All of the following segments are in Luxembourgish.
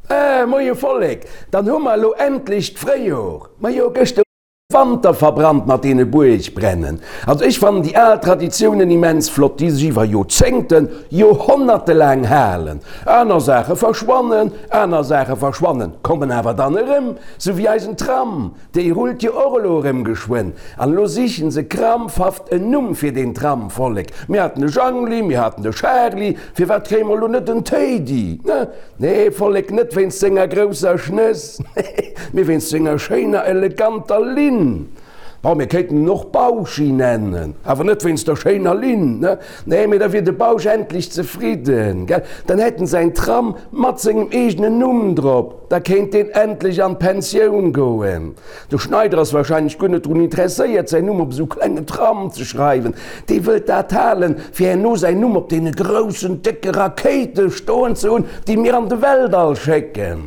Eh, moie Vollek, dann hu mer elo endlech d'Fréijor. Majo, gëschter Wanter verbrannt mat deene Buergbrennen. Also ech fannen déi al Traditiounen immens flott, déi sech iwwer Joerzéngten, Joerhonnerte laang halen. Aner Saache verschwannen, aner Saache verschwannen, kommen awer dann erëm, sou wéi eisen Tram, dee rullt jo och elo erëm geschwënn. An elo sichen se krampfhaft en Numm fir deen Tram, Vollek. Mir haten de Jangli, mir haten de Charly, firwat kréie mer elo net en Téidi, ne? Nee, Vollek, net wéinst senger grousser Schnëss, mee wéinst senger schéiner, eleganter Linn. Bon, mir kéinten en och Bauschi nennen, awer net wéinst der schéiner Linn, ne? Nee, mee da wier de Bausch endlech zefridden, gell? Dann hätt en säin Tram mat sengem eegenen Numm drop, da kéint deen endlech an d'Pensioun goen. De Schneider ass wahrscheinlech guer net drun interesséiert, säin Numm op esou klengen Tram ze schreiwen. Dee wëllt dat halen, fir herno säin Numm op deene groussen, décke Rakéite stoen ze hunn, déi mir an de Weltall schécken.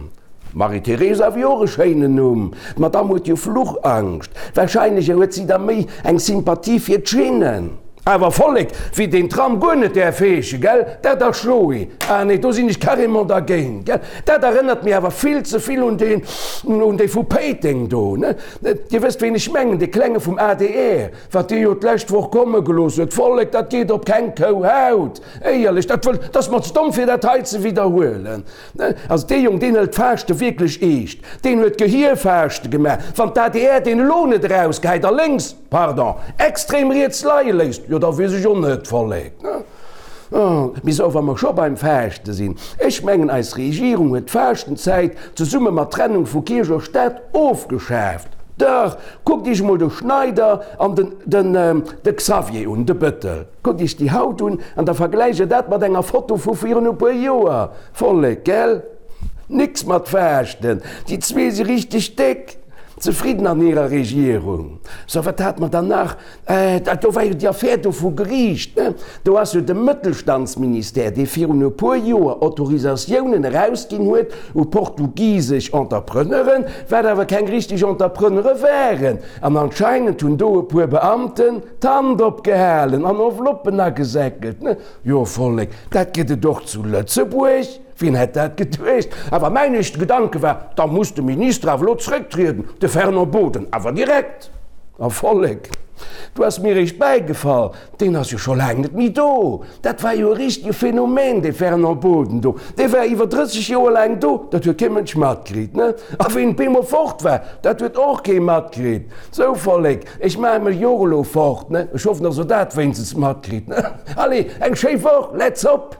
Marie-Theresa wier och e schéinen Numm. D'Madamm huet jo Fluchangscht. Wahrscheinlech huet si da méi eng Sympathie fir d'Schinnen. Awer Vollek, wéi deen Tram guer net däerf heeschen, gell? Dat ass Joé. Ah nee, do sinn ech carrément dergéint, gell? Dat erënnert mir awer vill ze vill un deen, un dee vu Péiteng do, ne? Dir wësst, ween ech mengen, dee Klenge vum adr, wat dee jo d'lescht Woch komme gelooss huet. Vollek, dat geet op keng Kouhaut, éierlech, dat wëll, dat ass mer ze domm, fir dat hei ze widderhuelen, ne? Also dee Jong, deen hëlt d'Faaschte wierklech eescht. Deen huet Gehierfaaschte gemaach. Wann d'ADR deen elo net erausgehäit a lénks, Pardon, extrem riets leie léisst, jo da weess ech och net, Vollek, ne? Mee sou, wa mer scho beim Faaschte sinn, ech mengen eis Regierung huet d'Faaschtenzäit zesumme mat Trennung vu Kierch a Staat ofgeschaaft. Dach, kuckt iech emol de Schneider an den, den, de Xavier un, de Bëttel. Kuckt iech déi haut un an da vergläicht der dat mat enger Foto vu virun e puer Joer, Vollek, gell? Nix mat Faaschten, déi zwee si richteg déck zefridden an hirer Regierung. So, wat hate mer dann nach? Äh, dat do war jo déi Affär do vu Geriicht, ne? Do ass jo de Mëttelstandsministère, dee virun e puer Joer Autorisatiounen erausginn huet u portugisesch Entrepreneuren, wat awer keng richteg Entrepreneure waren. An anscheinend hunn do e puer Beamten d'Hand opgehalen an Enveloppen agesäckelt, ne? Jo, Vollek, dat gëtt et och zu Lëtzebuerg. Wien hätt dat geduecht? Awer mäin éischte Gedanke war, da muss de Minister awer elo zrécktrieden, de Fernand Boden, awer direkt. A Vollek, du ass mir eréischt bäigefall, deen ass jo scho laang net méi do. Dat war jo e richtege Phänomen, dee Fernand Boden do. Dee war iwwer 30 Joer laang do, dat huet kee Mënsch matkritt, ne? A wéi en op eemol fort war, dat huet och kee matkritt. Sou, Vollek, ech maache mech jo och elo fort, ne? Ech hoffen, dass Der dat wéinstens matkritt, ne? Allez, eng schéi Woch, let's hop!